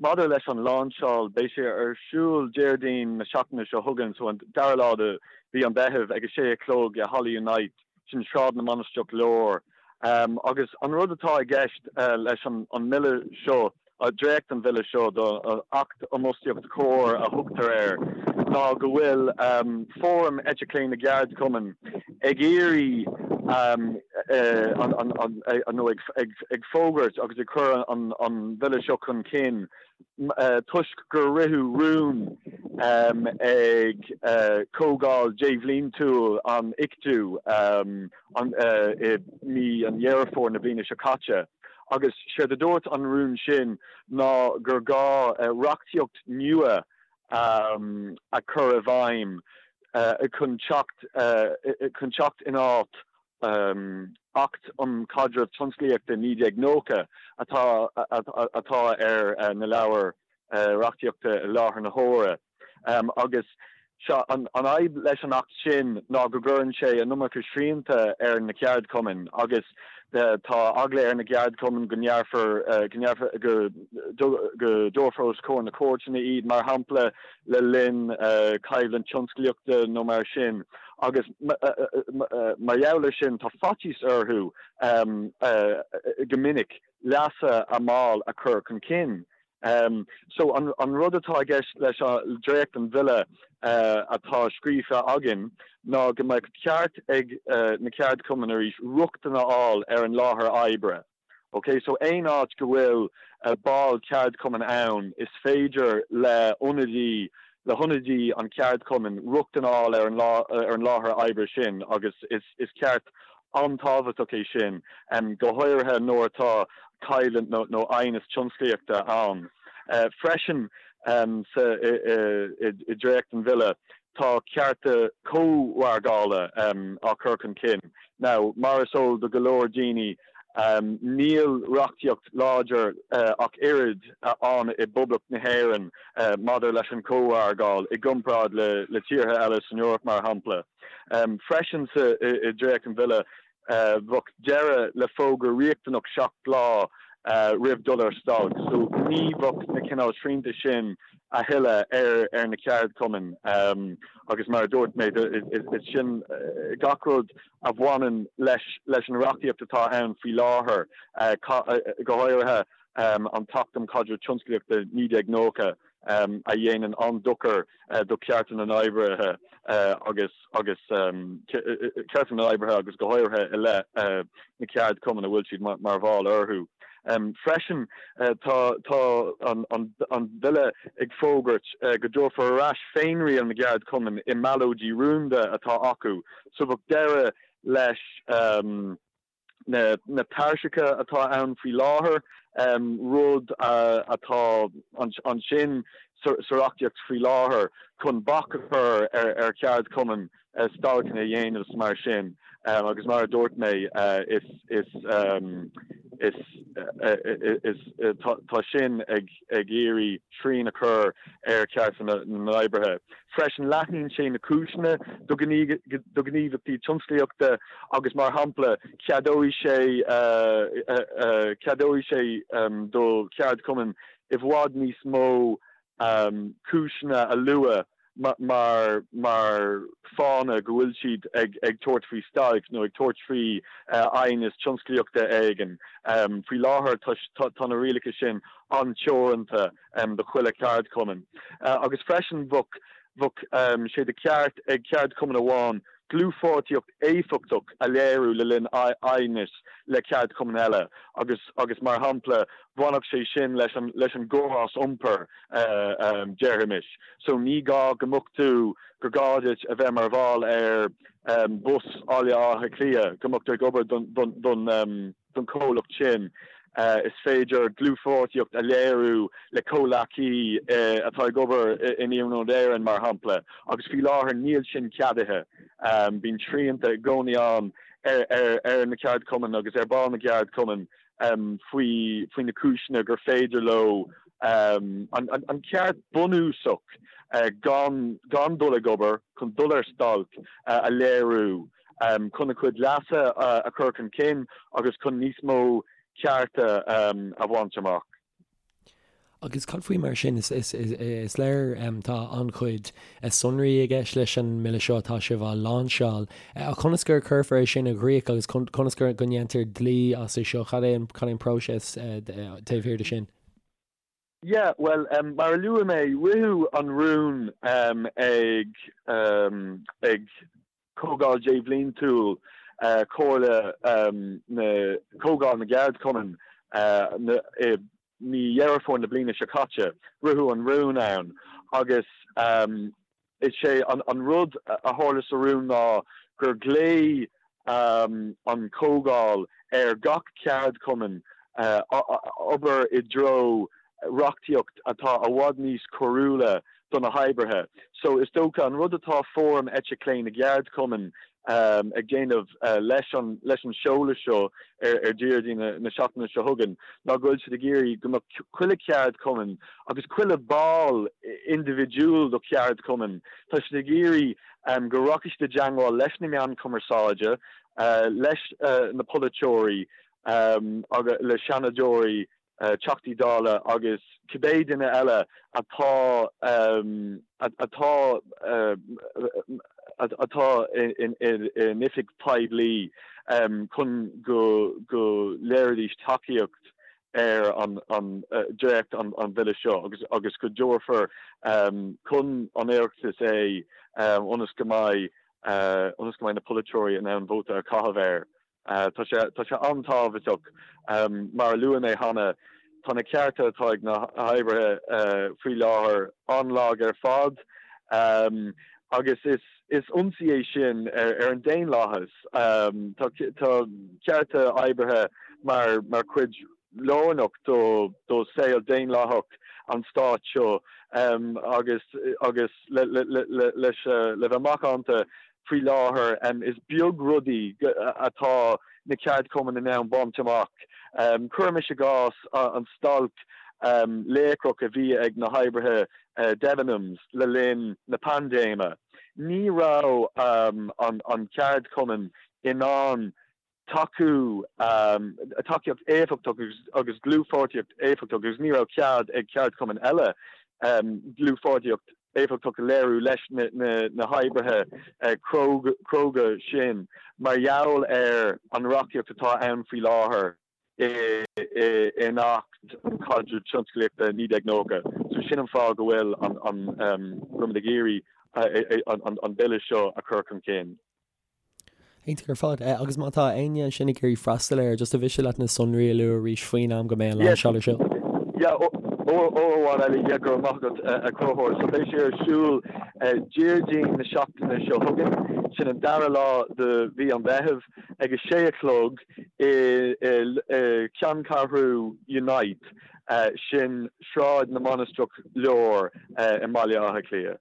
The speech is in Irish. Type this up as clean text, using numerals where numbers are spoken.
Maidir leis an lainseáil, beidh sé ar siúl Déardaoin na seachtaine seo chugainn, so an dara lá de mhí an Mheithimh ag 6 a chlog i Halla Unite, sin Sráid na Mainistreach Láir. Agus an rud atá i gceist leis an mbille seo, dréacht an bhille seo do Acht um Fhostaíocht Chóir a thugtar air, ná go bhfuil Fóram Eite Chlé na gCeardchumann ag iarraidh nó ag fógairt agus ag cur an bhille seo chun cinn toisc gur ritheadh rún ag comhdháil débhliantúil an Ictu i mí an Dheireadh Fómhair na bliana seo caite. Agus séard a dúirt an rún sin ná gur gá reachtaíocht nua a chur i bhfeidhm chun teacht chun teacht in áit Acht um Chaidreamh Tionsclaíochta 1990 atá atá ar na leabhair reachtaíochta i láthair na huaire. Agus seo, an fhadhb leis an Acht sin ná go gcuireann sé an iomarca srianta ar na ceardchumainn agus tá eagla ar na gceardchumainn go ngearrfar, go ngearrfar, go dtabharfar os comhair na cúirteanna iad, mar shampla, le linn coimhlint tionsclaíochta nó mar sin. Agus mar gheall ar sin tá faitíos orthu go minic leasa a mball a chur chun cinn. So an rud atá i gceist leis an dréacht den bhille atá scríofa againn ná go mbeadh ceart ag na ceardchumainn arís rochtain a fháil ar an láthair oibre. Ok, so aon áit go bhfuil ball ceardchumainn ann is féidir le ionadaí le hionadaí an cheardchumainn rochtain a fháil ar an láthair oibre sin agus is ceart an-tábhachtach é sin, go háirithe nuair atá coimhlint nó aighneas tionsclaíochta ann. Freisin sa i dréacht an bhille tá cearta cómhargála á cur chun cinn. Now, mar is eol do go leor daoine, Níl reachtaíocht láidir ach oiread ann i bPoblacht na hÉireann maidir leis an chómhargáil i gcomparáid le tíortha eile san Eoraip, mar shampla. Freisin sa i dréacht an bhille, bheadh deireadh le fógra riachtanach 7 lá roimh dul ar stailc, so ní bheadh na cineál srianta sin a thuilleadh ar na ceardchumainn agus mar a dúirt mé, is sin gach rud a bhaineann leis leis an reachtaíocht atá ann faoi láthair, go háirithe an tAcht um Chaidreamh Tionsclaíochta 1990 a dhéanann an-dochar do chearta na n-oibrithe agus agus cearta na n-oibrithe agus go háirithe i leith na ceardchumann a bhfuil siad mar bhall orthu. Freisin tá tá an bille ag fógairt go dtabharfar ar ais féinriail na gceardchumann i mballóidí rúnda atá acu So bheadh deireadh leis na tairseacha atá ann faoi láthair, rud atá ansin sa reachtaíocht faoi láthair chun bac a chur ar cheardchumainn stailceanna a dhéanamh is mar sin. Agus mar a dúirt mé, is is tá sin ag iarraidh srian a chur ar chearta na n-oibrithe. Freisin, leathnaíonn sé na cúiseanna do ghníomhaíochtaí tionsclaíochta agus, mar shampla, ceadóidh sé ceadóidh sé do cheardchumainn i bhfad níos mó cúiseanna a lua mar mar fáthanna go bhfuil siad ag ag tabhairt faoi stailc nó ag tabhairt faoi aighneas tionsclaíochta éigin. Faoi láthair tá tá na rialacha sin an-teoranta do chuile cheardchumann. Agus freisin bheadh bheadh sé de cheart ag ceardchumann amháin dlúthpháirtíocht éifeachtach a léiriú le linn aighnis le ceardchumann eile agus agus mar shampla bhainfeadh sé sin leis an leis an gcóras iompair déarfaimis. So ní gá go mbeadh tú gur gá duit a bheith mar bhall ar Bus Bhaile Átha Cliath go mbeadh tú ag obair don don don don chomhlacht sin. Is féidir dlúthpháirtíocht a léiriú le comhleacaí atá ag obair in Iarnród Éireann, mar shampla, agus faoi láthair níl sin ceadaithe. Bíonn srianta i gcónaí ann ar na ceardchumainn agus ar bhaill na gceardchumann faoi faoi na cúiseanna gur féidir leo an ceart bunúsach gan gan dul ag obair, chun dul ar stailc, a léiriú. chun a gcuid leasa a chur chun cinn agus chun níos mó cearta a bhaint amach. Agus cad faoi mar sin? Is léir tá an-chuid sonraí i gceist leis an mbille seo atá sibh á láinseáil. Ach conas gur cuirfear é sin i gcrích agus conas go ndéantar dlí as é seo? Cad é an próiseas taobh thiar de sin? Yeah, bhuel, mar a luaigh mé, ritheadh an rún ag ag Comhdháil Débhliantúil Chomhairle na Comhdháil na gCeardchumann i mí Dheireadh Fómhair na bliana seo caite. Ritheadh an rún ann agus is é an rud a tharla sa rún ná gur ghlaoigh an Chomhdháil ar gach ceardchumann obair i dtreo reachtaíocht atá i bhfad níos cóiriúla do na hoibrithe. So is dócha an rud atá Fóram Eite Chlé na gCeardchumann ag déanamh leis an leis an seoladh seo ar Déardaoin na seachtaine seo chugainn ná go bhfuil siad ag iarraidh go mbeadh chuile cheardchumann agus chuile ball indibhidiúil do cheardchumann, tá siad ag iarraidh go rachaidh siad i dteangmháil leis na meáin chumarsáide, leis na polaiteoirí agus le seanadóirí Teachtaí Dála agus cibé duine eile atá atá atá in oifig poiblí chun go go léireoidís tacaíocht ar an dréacht an bhille seo agus agus go dtabharfar chun an Oireachtais é ionas go mbeidh ionas go mbeidh na polaiteoirí in ann vóta a chaitheamh air. Tá sé, tá sé an-tábhachtach. Mar a luaigh mé cheana, tá na cearta atá ag na hoibrithe faoi láthair an-lag ar fad agus is, is ionsaí é sin ar an daonlathas. Tá, tá cearta oibrithe mar, mar chuid lárnach do, do saol daonlathach an stáit seo agus, agus le, le, le, leis, le bheith macánta, Faoi láthair, is beag rudaí atá na ceardchumainn in ann baint amach. Cuirimis i gcás an stailc léacrach a bhí ag na hoibrithe Debenhams le linn na paindéime. Ní raibh an ceardchumann in ann tacú, tacaíocht éifeachtach agus dlúthpháirtíocht éifeachtach agus ní raibh cead ag ceardchumainn eile dlúthpháirtíocht éifeachtach a léiriú leis na hoibrithe cróga sin mar gheall ar an reachtaíocht atá ann faoi láthair in Acht um Chaidreamh Tionsclaíochta 1990. So sin an fáth go bhfuil an, go bhfuilimid ag iarraidh an bille seo a chur chun cinn. Iontach ar fad. Agus má tá éinne ansin ag iarraidh freastal air, just an mhiste leat na sonraí a lua arís faoin am go mbeidh an lainseáil ar siúl? Yeah, uair amháin eile, yeah, go raibh maith agat, a Chonchúir. So beidh sé ar siúl Déardaoin na seachtaine seo chugainn, sin an dara lá de mhí an Mheithimh, ag a sé a chlog i gceanncheathrú Unite, sin Sráid na Mainistreach Láir i mBaile Átha Cliath.